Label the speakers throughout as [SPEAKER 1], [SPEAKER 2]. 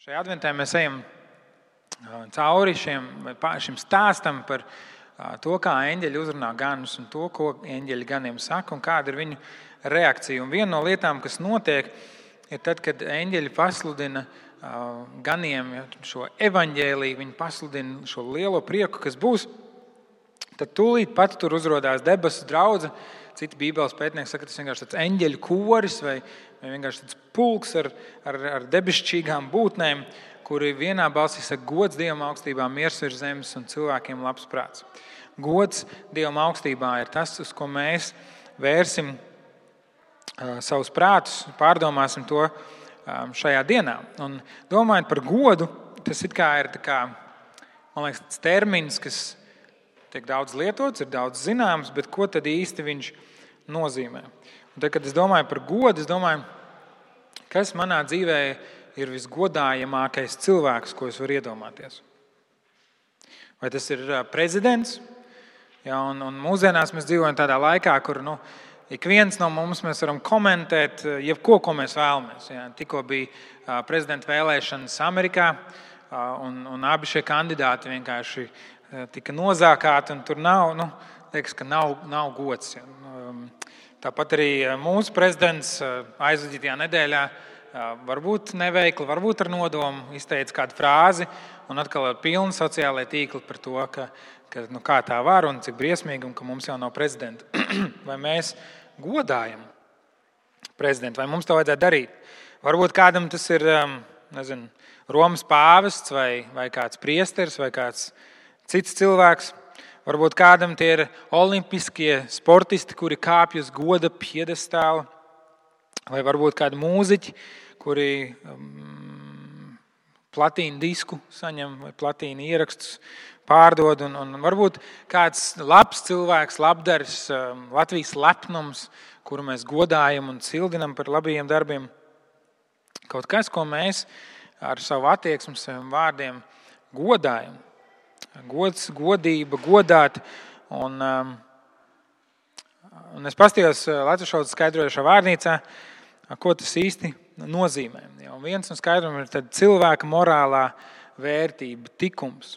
[SPEAKER 1] Šajā adventē mēs ejam cauri šim stāstam par to, kā eņģeļi uzrunā ganus un to, ko eņģeļi ganiem saka un kāda ir viņu reakcija. Un viena no lietām, kas notiek, ir tad, kad eņģeļi pasludina ganiem šo evaņģēliju, viņi pasludina šo lielo prieku, kas būs, tad tūlīt pat tur uzrodās debesu draudze. Citi bībeles pētnieki saka, ka tas vienkārši tāds eņģeļu koris vai vienkārši tāds pulks ar debesšķīgām būtnēm, kuri vienā balsī saka gods Dievam augstībā, miers virs zemes un cilvēkiem labs prāts. Gods Dievam augstībā ir tas, uz ko mēs vērsim savus prātus, pārdomāsim to šajā dienā. Un domājot par godu, tas it kā ir man liekas, tas termins, kas tiek daudz lietots, ir daudz zināms, bet ko tad īsti viņš nozīmē? Un tad, kad es domāju par godu, es domāju, kas manā dzīvē ir visgodājamākais cilvēks, ko es varu iedomāties. Vai tas ir prezidents? Ja, un mūsdienās mēs dzīvojam tādā laikā, kur ik viens no mums mēs varam komentēt jebko, ko mēs vēlamies. Ja, tikko bija prezidenta vēlēšanas Amerikā, un abi šie kandidāti vienkārši tika nozākāti, un tur liekas, ka nav gods. Ja. Tāpat arī mūsu prezidents aizvadītajā nedēļā varbūt neveikli, varbūt ar nodomu izteica kādu frāzi, un atkal ir pilni sociālai tīkli par to, ka kā tā var un cik briesmīgi, un ka mums jau nav prezidenta. Vai mēs godājam prezidentu, vai mums to vajadzētu darīt? Varbūt kādam tas ir, Romas pāvests vai kāds priesteris vai kāds cits cilvēks. Varbūt kādam tie ir olimpiskie sportisti, kuri kāpj uz goda piedestāla, vai varbūt kādi mūziķi, kuri platīnu disku saņem vai platīnu ierakstus pārdod, un varbūt kāds labs cilvēks, labdaris, Latvijas lepnums, kuru mēs godājam un cildinam par labajiem darbiem. Kaut kas, ko mēs ar savu attieksmi, saviem vārdiem godājam. Gods, godība, godāt. Un es paskatījos latviešu valodas skaidrojošā vārnīcā, ko tas īsti nozīmē. Un viens no skaidrojumiem ir cilvēka morālā vērtība, tikums.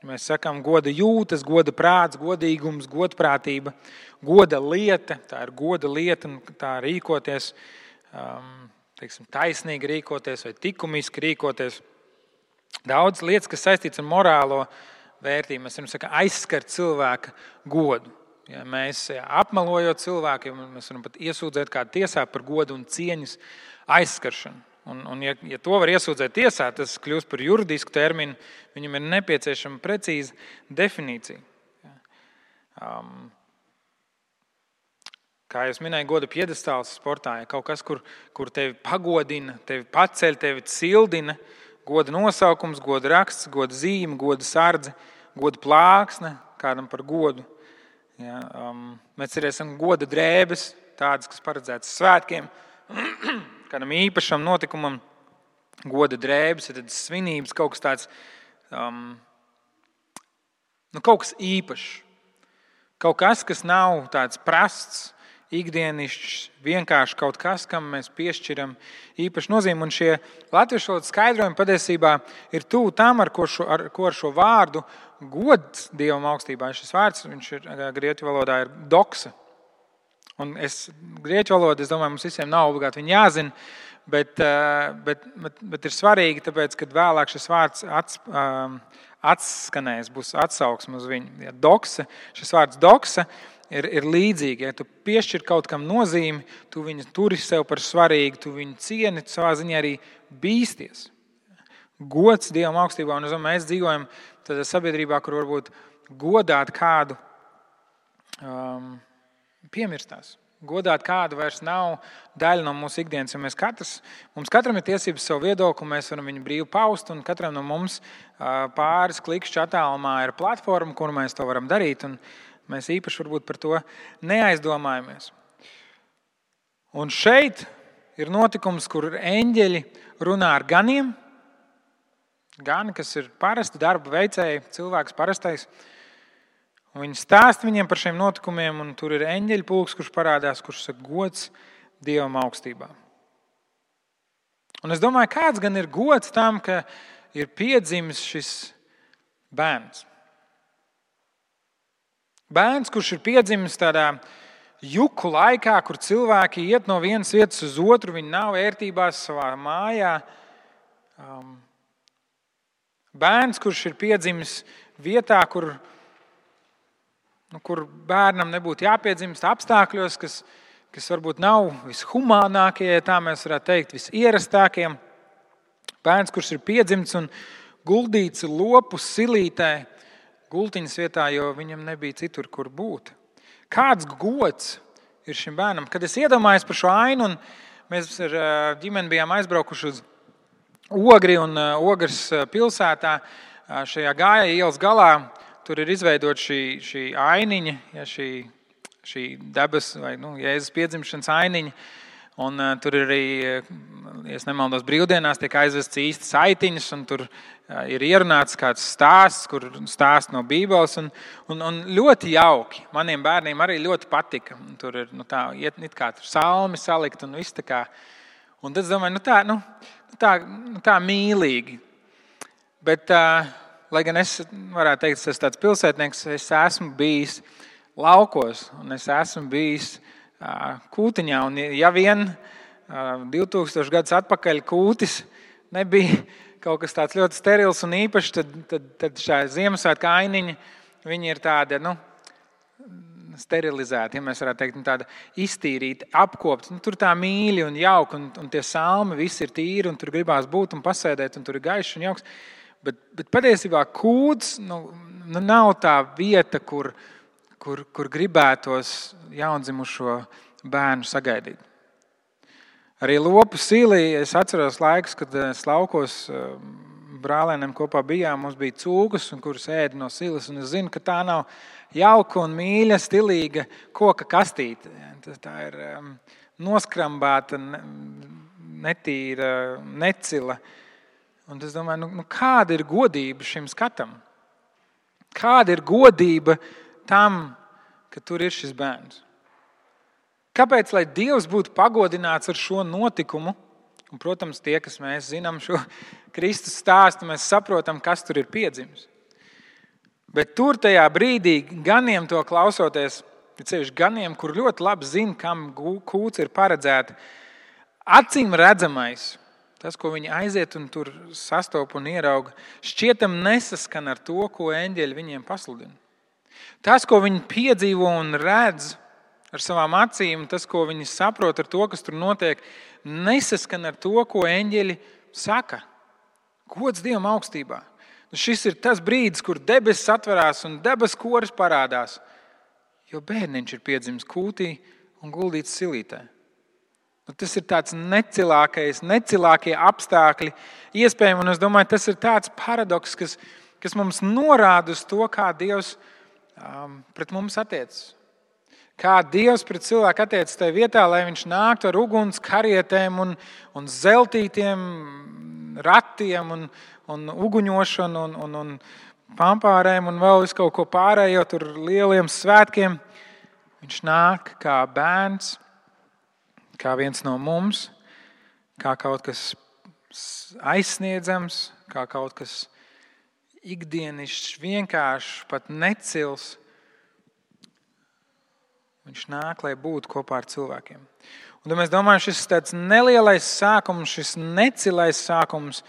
[SPEAKER 1] Mēs sakām goda jūtas, goda prāts, godīgums, godprātība, goda lieta. Tā ir goda lieta un tā rīkoties, taisnīgi rīkoties vai likumiski rīkoties. Daudz lietas, kas saistīts ar morālo vērtību. Mēs varam aizskart cilvēka godu. Ja mēs apmelojot cilvēku, mēs varam pat iesūdzēt kādu tiesā par godu un cieņas aizskaršanu. Un ja to var iesūdzēt tiesā, tas kļūst par juridisku terminu, viņam ir nepieciešama precīza definīcija. Kā jau minēju, goda piedestāls sportā, ja kaut kas, kur tevi pagodina, tevi paceļ, tevi cildina, goda nosaukums, goda raksts, goda zīme, goda sardze, goda plāksne, kādam par godu. Ja, mēs arī esam goda drēbes, tādas, kas paredzētas svētkiem, kādam īpašam notikumam. Goda drēbes ir tādas svinības, kaut kas tāds, kaut kas īpašs. Kaut kas, kas nav tāds prasts, ikdienišķs, vienkārši kaut kas, kam mēs piešķiram īpašu nozīmi. Un šie latviešu valodas skaidrojumi patiesībā ir tuvu tam, ar ko ar šo vārdu gods Dievam augstībā. Šis vārds, viņš ir grieķu valodā, ir doksa. Un grieķu valoda, es domāju, mums visiem nav obligāti viņa jāzina, bet ir svarīgi, tāpēc, kad vēlāk šis vārds atskanēs, būs atsauksme uz viņu. Ja, doksa, šis vārds doksa ir līdzīgi. Ja tu piešķir kaut kam nozīmi, tu viņu turi sev par svarīgu, tu viņu cieni, tu savā ziņā arī bīsties. Gods Dievam augstībā, un mēs dzīvojam tādā sabiedrībā, kur varbūt godāt kādu piemirstās. Godāt kādu vairs nav daļa no mūsu ikdienas, jo mums katram ir tiesības savu viedokli, mēs varam viņu brīvi paust, un katram no mums pāris klikšķi attālumā ir platforma, kur mēs to varam darīt, un mēs īpaši varbūt par to neaizdomājamies. Un šeit ir notikums, kur eņģeļi runā ar ganiem. Gani, kas ir parasti darba veicēji, cilvēks parastais. Un viņi stāsta viņiem par šiem notikumiem, un tur ir eņģeļu pulks, kurš parādās, kurš saka gods Dievam augstībā. Un es domāju, kāds gan ir gods tam, ka ir piedzimis šis bērns. Bērns, kurš ir piedzimis tādā juku laikā, kur cilvēki iet no vienas vietas uz otru, viņi nav ērtībās savā mājā. Bērns, kurš ir piedzimis vietā, kur bērnam nebūtu jāpiedzimst apstākļos, kas varbūt nav vishumānākie, ja tā mēs varētu teikt, visierastākie. Bērns, kurš ir piedzimts un guldīts lopu silītē, gultiņas vietā, jo viņam nebija citur, kur būt. Kāds gods ir šim bērnam? Kad es iedomājos par šo ainu, un mēs ar ģimeni bijām aizbraukuši uz Ogri un Ogres pilsētā, šajā Gāja ielas galā, tur ir izveidot šī ainiņa, ja, šī debes vai Jēzus piedzimšanas ainiņa. Un tur ir arī, ja es nemaldos, brīvdienās tiek aizvests īstas aitiņas, un tur ir ierunāts kāds stāsts, kur stāsts no Bībeles, un ļoti jauki. Maniem bērniem arī ļoti patika. Tur ir it kā tur salmi salikt un viss tā kā. Un tad es domāju, tā mīlīgi. Bet, lai gan es varētu teikt, es esmu tāds pilsētnieks, es esmu bijis laukos, un es esmu bijis Kūtiņā. Un ja vien 2000 gadus atpakaļ Kūtis nebija kaut kas tāds ļoti sterils un īpašs, tad šā Ziemassvētku ainiņa, viņi ir tāda, sterilizēta, ja mēs varētu teikt, tāda iztīrīta, apkopta. Tur tā mīļi un jauka, un tie salmi visi ir tīri, un tur gribās būt un pasēdēt, un tur ir gaišs un jauks. Bet patiesībā Kūts nav tā vieta, kur gribētos jaundzimušo bērnu sagaidīt. Arī lopu silī es atceros laikus, kad es laukos brālēniem kopā bijām, mums bija cūkas, kuras ēda no silas, un es zinu, ka tā nav jauka un mīļa, stilīga koka kastīte. Tā ir noskrambāta, netīra, necila. Un es domāju, kāda ir godība šim skatam? Kāda ir godība tam, ka tur ir šis bērns? Kāpēc, lai Dievs būtu pagodināts ar šo notikumu? Un, protams, tie, kas mēs zinām šo Kristus stāstu, mēs saprotam, kas tur ir piedzimis. Bet tur tajā brīdī ganiem to klausoties, ceļš ganiem, kur ļoti labi zina, kam kūts ir paredzēta, acīm redzamais, tas, ko viņi aiziet un tur sastop un ierauga, šķietam nesaskan ar to, ko eņģeļi viņiem pasludina. Tas, ko viņi piedzīvo un redz ar savām acīm, tas, ko viņi saprot ar to, kas tur notiek, nesaskan ar to, ko eņģeļi saka. Gods Dievam augstībā. Šis ir tas brīdis, kur debesis atverās un debesu koris parādās, jo bērniņš ir piedzimis kūtī un guldīts silītē. Tas ir tāds necilākie apstākļi iespējami, un es domāju, tas ir tāds paradoks, kas mums norāda uz to, kā Dievs pret mums attiecas. Kā Dievs pret cilvēku attiecas tajā vietā, lai viņš nāktu ar uguns karietēm un zeltītiem ratiem un uguņošanu un pampārēm un vēl visu kaut ko pārējo tur lieliem svētkiem. Viņš nāk kā bērns, kā viens no mums, kā kaut kas aizsniedzams, kā kaut kas ikdienišķs, vienkāršs, pat necils. Viņš nāk, lai būtu kopā ar cilvēkiem. Un tad mēs domājam, šis tāds nelielais sākums, šis necilais sākums,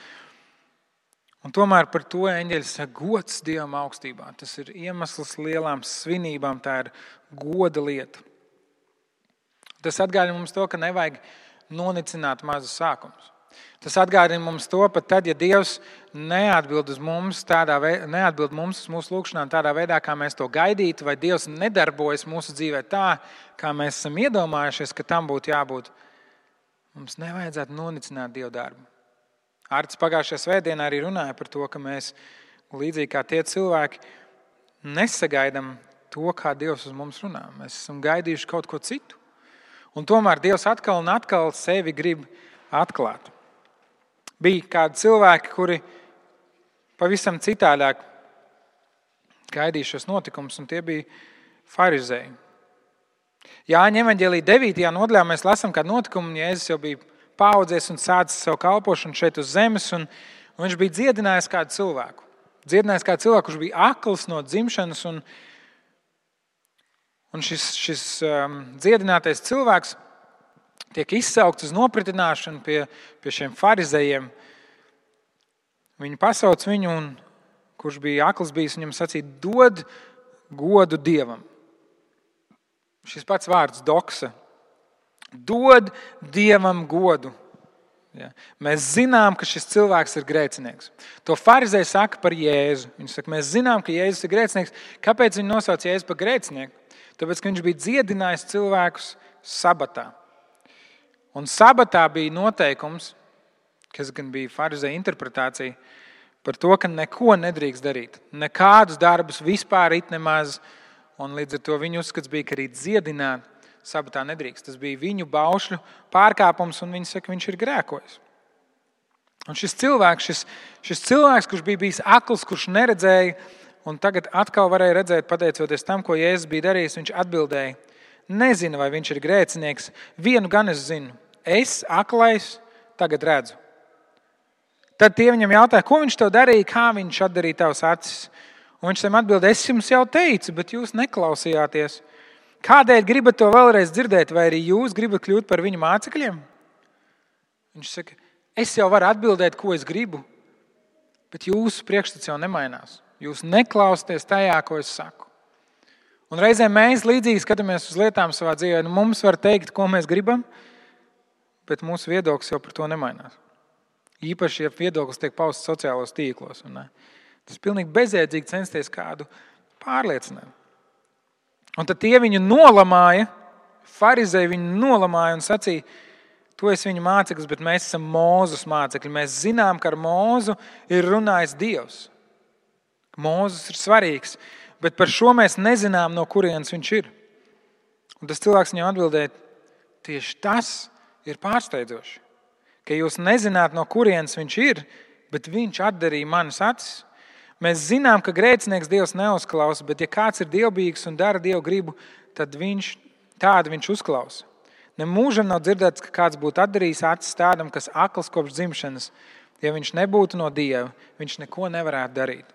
[SPEAKER 1] un tomēr par to eņģeļi saka gods Dievam augstībā. Tas ir iemesls lielām svinībām, tā ir goda lieta. Tas atgādina mums to, ka nevajag nonicināt mazus sākumus. Tas atgādina mums to, pat tad, ja Dievs neatbild mums uz mūsu lūgšanām tādā veidā, kā mēs to gaidītu, vai Dievs nedarbojas mūsu dzīvē tā, kā mēs esam iedomājušies, ka tam būtu jābūt. Mums nevajadzētu nonicināt Dieva darbu. Ārts pagājušajā svētdienā arī runāja par to, ka mēs, līdzīgi kā tie cilvēki, nesagaidām to, kā Dievs uz mums runā. Mēs esam gaidījuši kaut ko citu. Un tomēr Dievs atkal un atkal sevi grib atklāt. Bija kādi cilvēki, kuri pavisam citādāk gaidīja šos notikumus, un tie bija farizēji. Jāņa evaņģēlija 9. nodaļā mēs lasām kādu notikumu, un Jēzus jau bija paaudzies un sācis savu kalpošanu šeit uz zemes, un viņš bija dziedinājis kādu cilvēku. Dziedinājis kādu cilvēku, kurš bija akls no dzimšanas, un šis dziedinātais cilvēks tiek izsaukts uz nopratināšanu pie šiem farizejiem. Viņi pasauc viņu, un kurš bija akls bijis, viņam sacīja, dod godu Dievam. Šis pats vārds doksa. Dod Dievam godu. Ja. Mēs zinām, ka šis cilvēks ir grēcinieks. To farizēji saka par Jēzu. Viņi saka, mēs zinām, ka Jēzus ir grēcinieks. Kāpēc viņi nosauc Jēzu par grēcinieku? Tāpēc, ka viņš bija dziedinājis cilvēkus sabatā. Un sabatā bija noteikums, kas gan bija farizēja interpretācija, par to, ka neko nedrīkst darīt. Nekādus darbus vispār it nemaz. Un līdz ar to viņu uzskats bija, ka arī dziedināt sabatā nedrīkst. Tas bija viņu baušļu pārkāpums, un viņi saka, viņš ir grēkojis. Un šis cilvēks, kurš bija bijis akls, kurš neredzēja, un tagad atkal varēja redzēt, pateicoties tam, ko Jēzus bija darījis, viņš atbildēja, nezinu, vai viņš ir grēcinieks. Vienu gan es zinu, es, aklais, tagad redzu. Tad tie viņam jautāja, ko viņš tev darīja, kā viņš atdarīja tavas acis. Un viņš tam atbildēja, es jums jau teicu, bet jūs neklausījāties. Kādēļ gribat to vēlreiz dzirdēt, vai arī jūs gribat kļūt par viņu mācekļiem? Viņš saka, es jau varu atbildēt, ko es gribu, bet jūsu priekšstats jau nemainās. Jūs neklausieties tajā, ko es saku. Un reizēm mēs līdzīgi skatāmies uz lietām savā dzīvē. Mums var teikt, ko mēs gribam, bet mūsu viedoklis jau par to nemainās. Īpaši, ja viedoklis tiek pausts sociālos tīklos. Tas ir pilnīgi bezjēdzīgi censties kādu pārliecināt. Un tad tie viņu nolamāja, farizēji viņu nolamāja un sacīja, tu esi viņa māceklis, bet mēs esam Mūzes mācekļi. Mēs zinām, ka ar Mūzu ir runājis Dievs. Mūzes ir svarīgs, bet par šo mēs nezinām, no kurienes viņš ir. Un tas cilvēks viņam atbildēja, tieši tas ir pārsteidzoši, ka jūs nezināt, no kurienes viņš ir, bet viņš atdarīja manas acis. Mēs zinām, ka grēcinieks Dievs neuzklausa, bet ja kāds ir dievbijīgs un dara Dievu gribu, tad tādu viņš uzklausa. Nemūžam nav dzirdēts, ka kāds būtu atdarījis acis tādam, kas akls kopš dzimšanas. Ja viņš nebūtu no Dieva, viņš neko nevarētu darīt.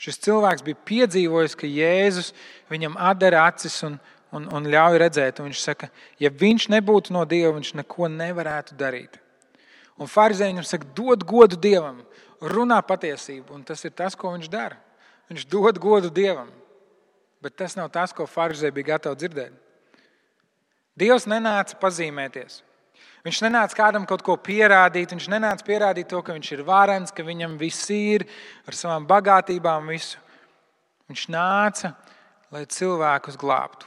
[SPEAKER 1] Šis cilvēks bija piedzīvojis, ka Jēzus viņam atdara acis un ļauj redzēt. Un viņš saka, ja viņš nebūtu no Dieva, viņš neko nevarētu darīt. Un farizēji viņam saka, dod godu Dievam, runā patiesību. Un tas ir tas, ko viņš dara. Viņš dod godu Dievam. Bet tas nav tas, ko farizēji bija gatavi dzirdēt. Dievs nenāca pazīmēties. Viņš nenāca kādam kaut ko pierādīt. Viņš nenāca pierādīt to, ka viņš ir varens, ka viņam viss ir ar savām bagātībām visu. Viņš nāca, lai cilvēkus glābtu.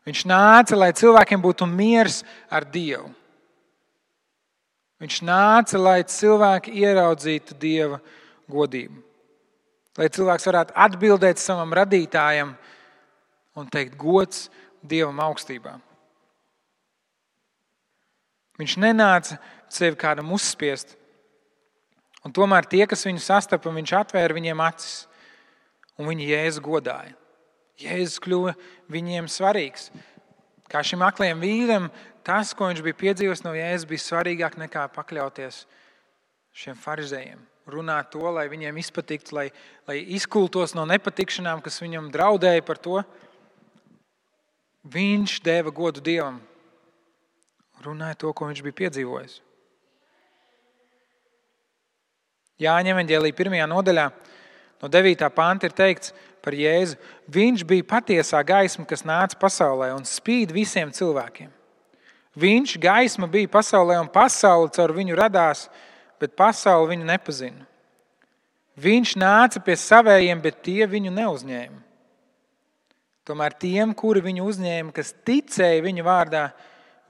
[SPEAKER 1] Viņš nāca, lai cilvēkiem būtu miers ar Dievu. Viņš nāca, lai cilvēki ieraudzītu Dieva godību. Lai cilvēks varētu atbildēt savam radītājam un teikt gods Dievam augstībā. Viņš nenāca sevi kādam uzspiest. Un tomēr tie, kas viņu sastapa, viņš atvēra viņiem acis. Un viņi Jēzu godāja. Jēzus kļuva viņiem svarīgs. Kā šim aklajam vīram, tas, ko viņš bija piedzīvojis no Jēzus, bija svarīgāk nekā pakļauties šiem farizējiem. Runāt to, lai viņiem izpatiktu, lai izkultos no nepatikšanām, kas viņam draudēja par to. Viņš deva godu Dievam. Runāja to, ko viņš bija piedzīvojis. Jāņa evaņģēlija 1. nodaļā no 9. panta ir teikts par Jēzu. Viņš bija patiesā gaisma, kas nāca pasaulē un spīd visiem cilvēkiem. Viņš, gaisma, bija pasaulē un pasaule caur viņu radās, bet pasaule viņu nepazina. Viņš nāca pie savējiem, bet tie viņu neuzņēma. Tomēr tiem, kuri viņu uzņēma, kas ticēja viņa vārdā,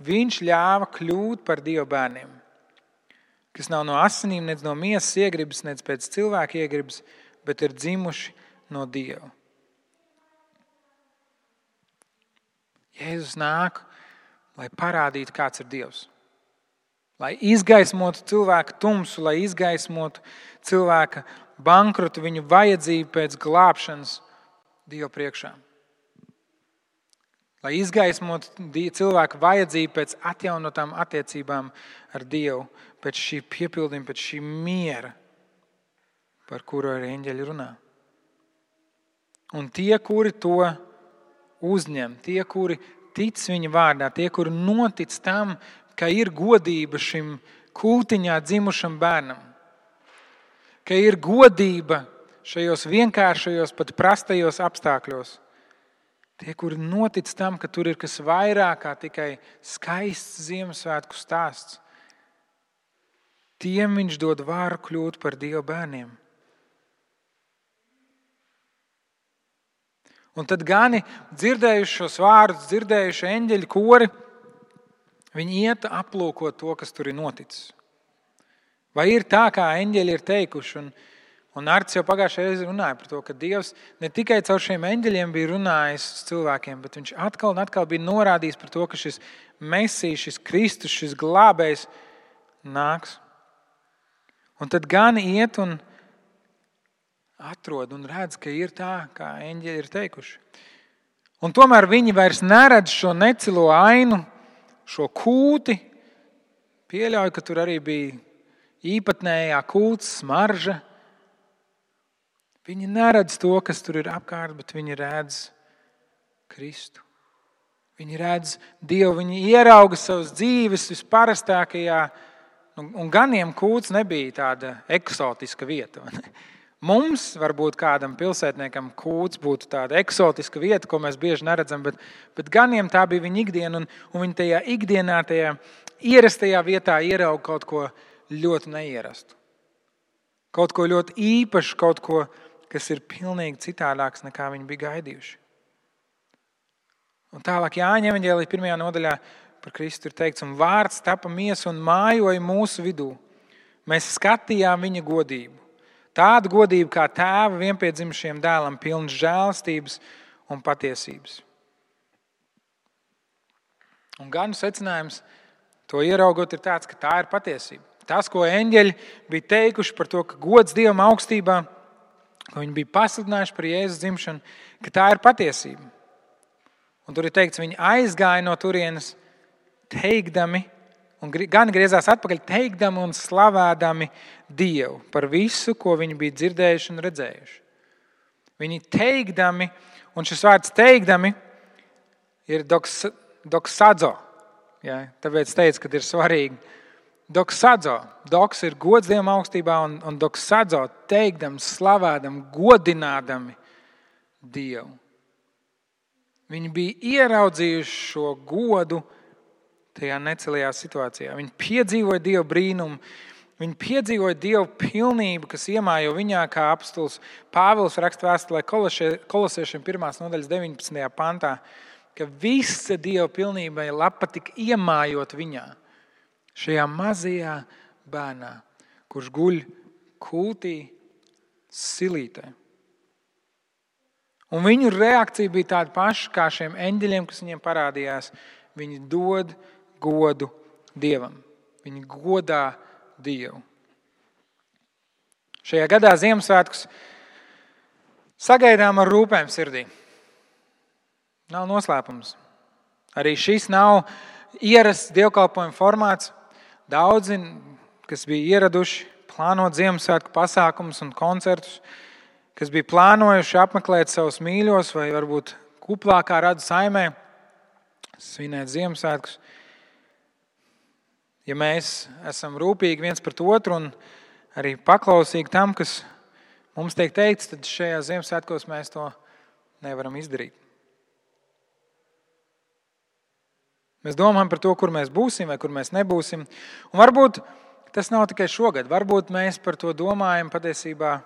[SPEAKER 1] viņš ļāva kļūt par Dieva bērniem, kas nav no asinīm, nec no miesas iegribas, nec pēc cilvēka iegribas, bet ir dzimuši no Dieva. Jēzus nāk, lai parādītu, kāds ir Dievs. Lai izgaismotu cilvēka tumsu, lai izgaismotu cilvēka bankrotu, viņu vajadzību pēc glābšanas Dieva priekšā. lai izgaismotu cilvēku vajadzību pēc atjaunotām attiecībām ar Dievu, pēc šī piepildījuma, pēc šī miera, par kuru arī eņģeļi runā. Un tie, kuri to uzņem, tie, kuri tic viņa vārdā, tie, kuri notic tam, ka ir godība šim kūtiņā dzimušam bērnam, ka ir godība šajos vienkāršajos, pat prastajos apstākļos, tie, kuri notic tam, ka tur ir kas vairāk kā tikai skaists Ziemassvētku stāsts, tiem viņš dod varu kļūt par Dieva bērniem. Un tad gani dzirdējuši šos vārdus, dzirdējuši eņģeļu kori, viņi iet aplūkot to, kas tur ir noticis. Vai ir tā, kā eņģeļi ir teikuši? Un Arts jau pagājušajā reizē runāja par to, ka Dievs ne tikai caur šiem eņģeļiem bija runājis uz cilvēkiem, bet viņš atkal un atkal bija norādījis par to, ka šis Mesijs, šis Kristus, šis glābējs nāks. Un tad gani iet un atrod un redz, ka ir tā, kā eņģeļi ir teikuši. Un tomēr viņi vairs neredz šo necilo ainu, šo kūti. Pieļauju, ka tur arī bija īpatnējā kūts, smarža. Viņi neredz to, kas tur ir apkārt, bet viņi redz Kristu. Viņi redz Dievu, viņi ierauga savas dzīves visparastākajā, un ganiem kūts nebija tāda eksotiska vieta. Mums, varbūt kādam pilsētniekam, kūts būtu tāda eksotiska vieta, ko mēs bieži neredzam, bet ganiem tā bija viņa ikdiena, un viņi tajā ikdienā, tajā ierastajā vietā ierauga kaut ko ļoti neierastu. Kaut ko ļoti īpašu, kaut ko, kas ir pilnīgi citādāks, nekā viņi bija gaidījuši. Un tālāk Jāņa evaņģēlija 1. nodaļā par Kristu ir teikts, un vārds tapa miesa un mājoja mūsu vidū. Mēs skatījām viņa godību. Tādu godību kā tēva vienpiedzimušajam dēlam, pilns žēlastības un patiesības. Un ganu secinājums to ieraugot ir tāds, ka tā ir patiesība. Tas, ko eņģeļi bija teikuši par to, ka gods Dievam augstībā, ko viņi bija pasludinājuši par Jēzus dzimšanu, ka tā ir patiesība. Un tur ir teikts, viņi aizgāja no turienes teikdami, un gan griezās atpakaļ teikdami un slavādami Dievu par visu, ko viņi bija dzirdējuši un redzējuši. Viņi teikdami, un šis vārds teikdami ir doksadzo. Ja, tāpēc teicu, ka ir svarīgi. Doksadzo. Doks ir gods Dievam augstībā, un doksadzo teikdam, slavādam, godinādami Dievu. Viņi bija ieraudzījuši šo godu tajā necelajā situācijā. Viņi piedzīvoja Dieva brīnumu, viņi piedzīvoja Dieva pilnību, kas iemājo viņā, kā apostols Pāvils raksta vēstulē Kolosiešiem 1. nodaļas 19. pantā, ka visa Dieva pilnība ir lapa tik iemājot viņā, šajā mazajā bērnā, kurš guļ kūtī silītē. Un viņu reakcija bija tāda paša kā šiem eņģeļiem, kas viņiem parādījās. Viņi dod godu Dievam. Viņi godā Dievu. Šajā gadā Ziemassvētkus sagaidām ar rūpēm sirdī. Nav noslēpums. Arī šis nav ierasts dievkalpojuma formāts. Daudzi, kas bija ieraduši plānot Ziemassvētku pasākumus un koncertus, kas bija plānojuši apmeklēt savus mīļos vai varbūt kuplākā radu saimē, svinēt Ziemassvētkus. Ja mēs esam rūpīgi viens pret otru un arī paklausīgi tam, kas mums tiek teikts, tad šajā Ziemassvētkos mēs to nevaram izdarīt. Mēs domājam par to, kur mēs būsim vai kur mēs nebūsim. Un varbūt tas nav tikai šogad. Varbūt mēs par to domājam patiesībā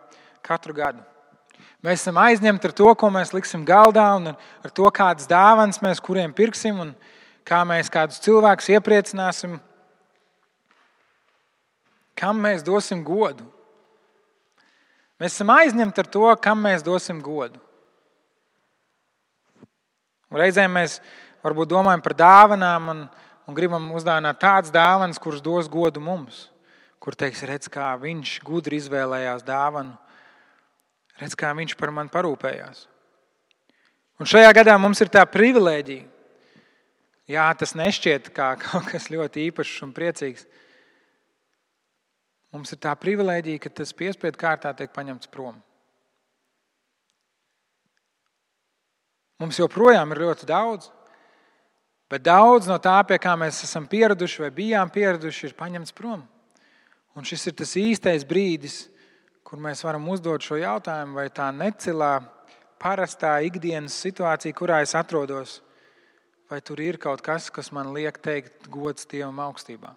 [SPEAKER 1] katru gadu. Mēs esam aizņemti ar to, ko mēs liksim galdā un ar to, kādas dāvanas mēs kuriem pirksim un kā mēs kādus cilvēkus iepriecināsim. Kam mēs dosim godu? Mēs esam aizņemti ar to, kam mēs dosim godu. Un reizēm mēs varbūt domājam par dāvanām un gribam uzdāvināt tādas dāvanas, kuras dos godu mums. Kur teiks, redz, kā viņš gudri izvēlējās dāvanu. Redz, kā viņš par mani parūpējās. Un šajā gadā mums ir tā privilēģija. Jā, tas nešķiet kā kaut kas ļoti īpašs un priecīgs. Mums ir tā privilēģija, ka tas piespiedu kārtā tiek paņemts prom. Mums joprojām ir ļoti daudz, bet daudz no tā, pie kā mēs esam pieraduši vai bijām pieraduši, ir paņemts prom. Un šis ir tas īstais brīdis, kur mēs varam uzdot šo jautājumu, vai tā necilā, parastā ikdienas situācija, kurā es atrodos, vai tur ir kaut kas, kas man liek teikt gods Dievam augstībā.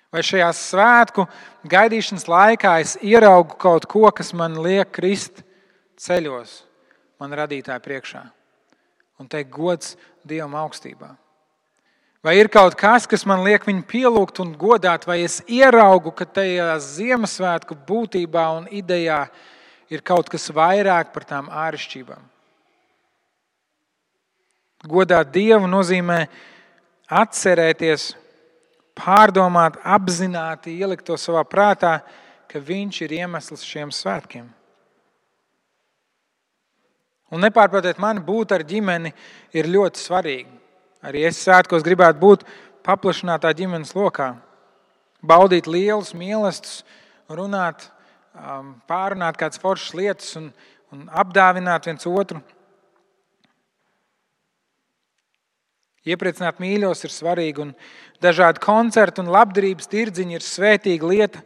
[SPEAKER 1] Vai šajā svētku gaidīšanas laikā es ieraugu kaut ko, kas man liek krist ceļos man radītāja priekšā un teikt gods Dievam augstībā. Vai ir kaut kas, kas man liek viņu pielūgt un godāt, vai es ieraugu, ka tajā Ziemassvētku būtībā un idejā ir kaut kas vairāk par tām āršķībām. Godāt Dievu nozīmē atcerēties, pārdomāt, apzināti ielikt to savā prātā, ka Viņš ir iemesls šiem svētkiem. Un nepārprotiet mani, būt ar ģimeni ir ļoti svarīgi. Arī es svētkos gribētu būt paplašinātā ģimenes lokā. Baudīt lielus mīlestus, runāt, pārunāt kādas foršas lietas un apdāvināt viens otru. Iepriecināt mīļos ir svarīgi, un dažādi koncerti un labdarības tirdziņi ir svētīga lieta.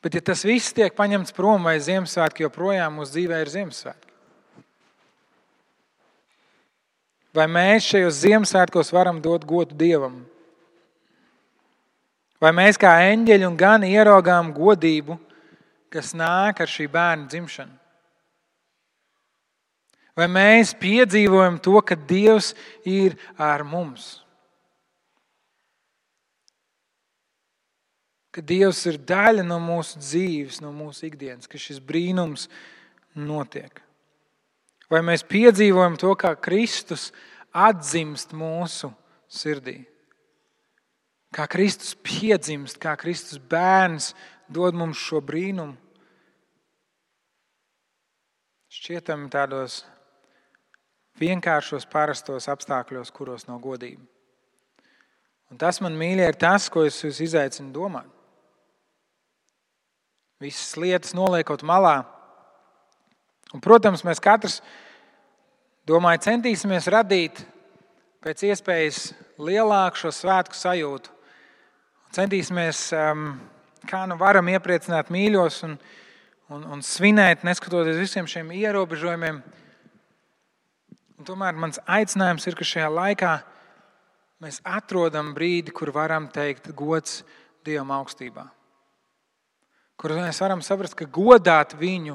[SPEAKER 1] Bet ja tas viss tiek paņemts prom, vai Ziemassvētki joprojām mūsu dzīvē ir Ziemassvētki? Vai mēs šajos Ziemassvētkos varam dot godu Dievam? Vai mēs kā eņģeļi un gani ieraugām godību, kas nāk ar šī bērna dzimšanu? Vai mēs piedzīvojam to, ka Dievs ir ar mums? Ka Dievs ir daļa no mūsu dzīves, no mūsu ikdienas, ka šis brīnums notiek. Vai mēs piedzīvojam to, kā Kristus atdzimst mūsu sirdī? Kā Kristus piedzimst, kā Kristus bērns dod mums šo brīnumu? Šķietami tādos vienkāršos, parastos apstākļos, kuros nav godība. Un tas, man mīļie, ir tas, ko es jūs izaicinu domāt. Visas lietas noliekot malā. Un, protams, mēs katrs, domāju, centīsimies radīt pēc iespējas lielāku šo svētku sajūtu. Centīsimies, kā nu varam iepriecināt mīļos un svinēt, neskatoties visiem šiem ierobežojumiem. Un tomēr mans aicinājums ir, ka šajā laikā mēs atrodam brīdi, kur varam teikt gods Dievam augstībā. Kur mēs varam saprast, ka godāt viņu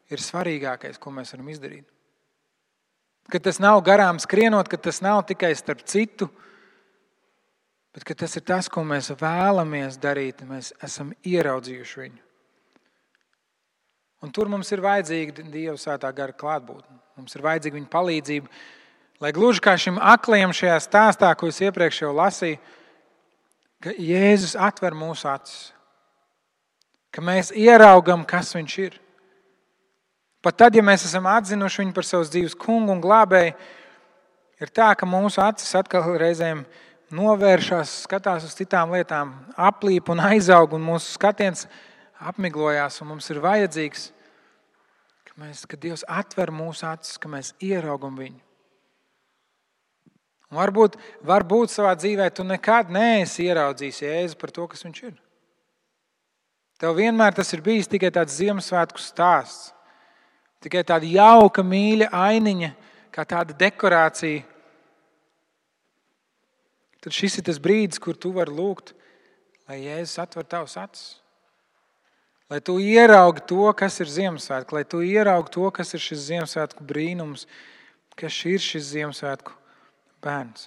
[SPEAKER 1] ir svarīgākais, ko mēs varam izdarīt. Ka tas nav garām skrienot, ka tas nav tikai starp citu, bet ka tas ir tas, ko mēs vēlamies darīt. Mēs esam ieraudzījuši viņu. Un tur mums ir vajadzīga Dieva svētā gara klātbūtne. Mums ir vajadzīga viņa palīdzība, lai gluži kā šim aklajam šajā stāstā, ko es iepriekš jau lasīju, ka Jēzus atver mūsu acis. Ka mēs ieraugam, kas viņš ir. Pat tad, ja mēs esam atzinuši viņu par savas dzīves kungu un glābēju, ir tā, ka mūsu acis atkal reizēm novēršas, skatās uz citām lietām, aplīp un aizaug, un mūsu skatiens apmiglojās, un mums ir vajadzīgs, ka Dievs atver mūsu acis, ka mēs ieraugam viņu. Un varbūt savā dzīvē tu nekad neesi ieraudzījis Jēzu par to, kas viņš ir. Tev vienmēr tas ir bijis tikai tāds Ziemassvētku stāsts, tikai tāda jauka, mīļa ainiņa, kā tāda dekorācija. Tad šis ir tas brīdis, kur tu vari lūgt, lai Jēzus atver tavus acis. Lai tu ieraugi to, kas ir Ziemassvētku, lai tu ieraugi to, kas ir šis Ziemassvētku brīnums, kas ir šis Ziemassvētku bērns.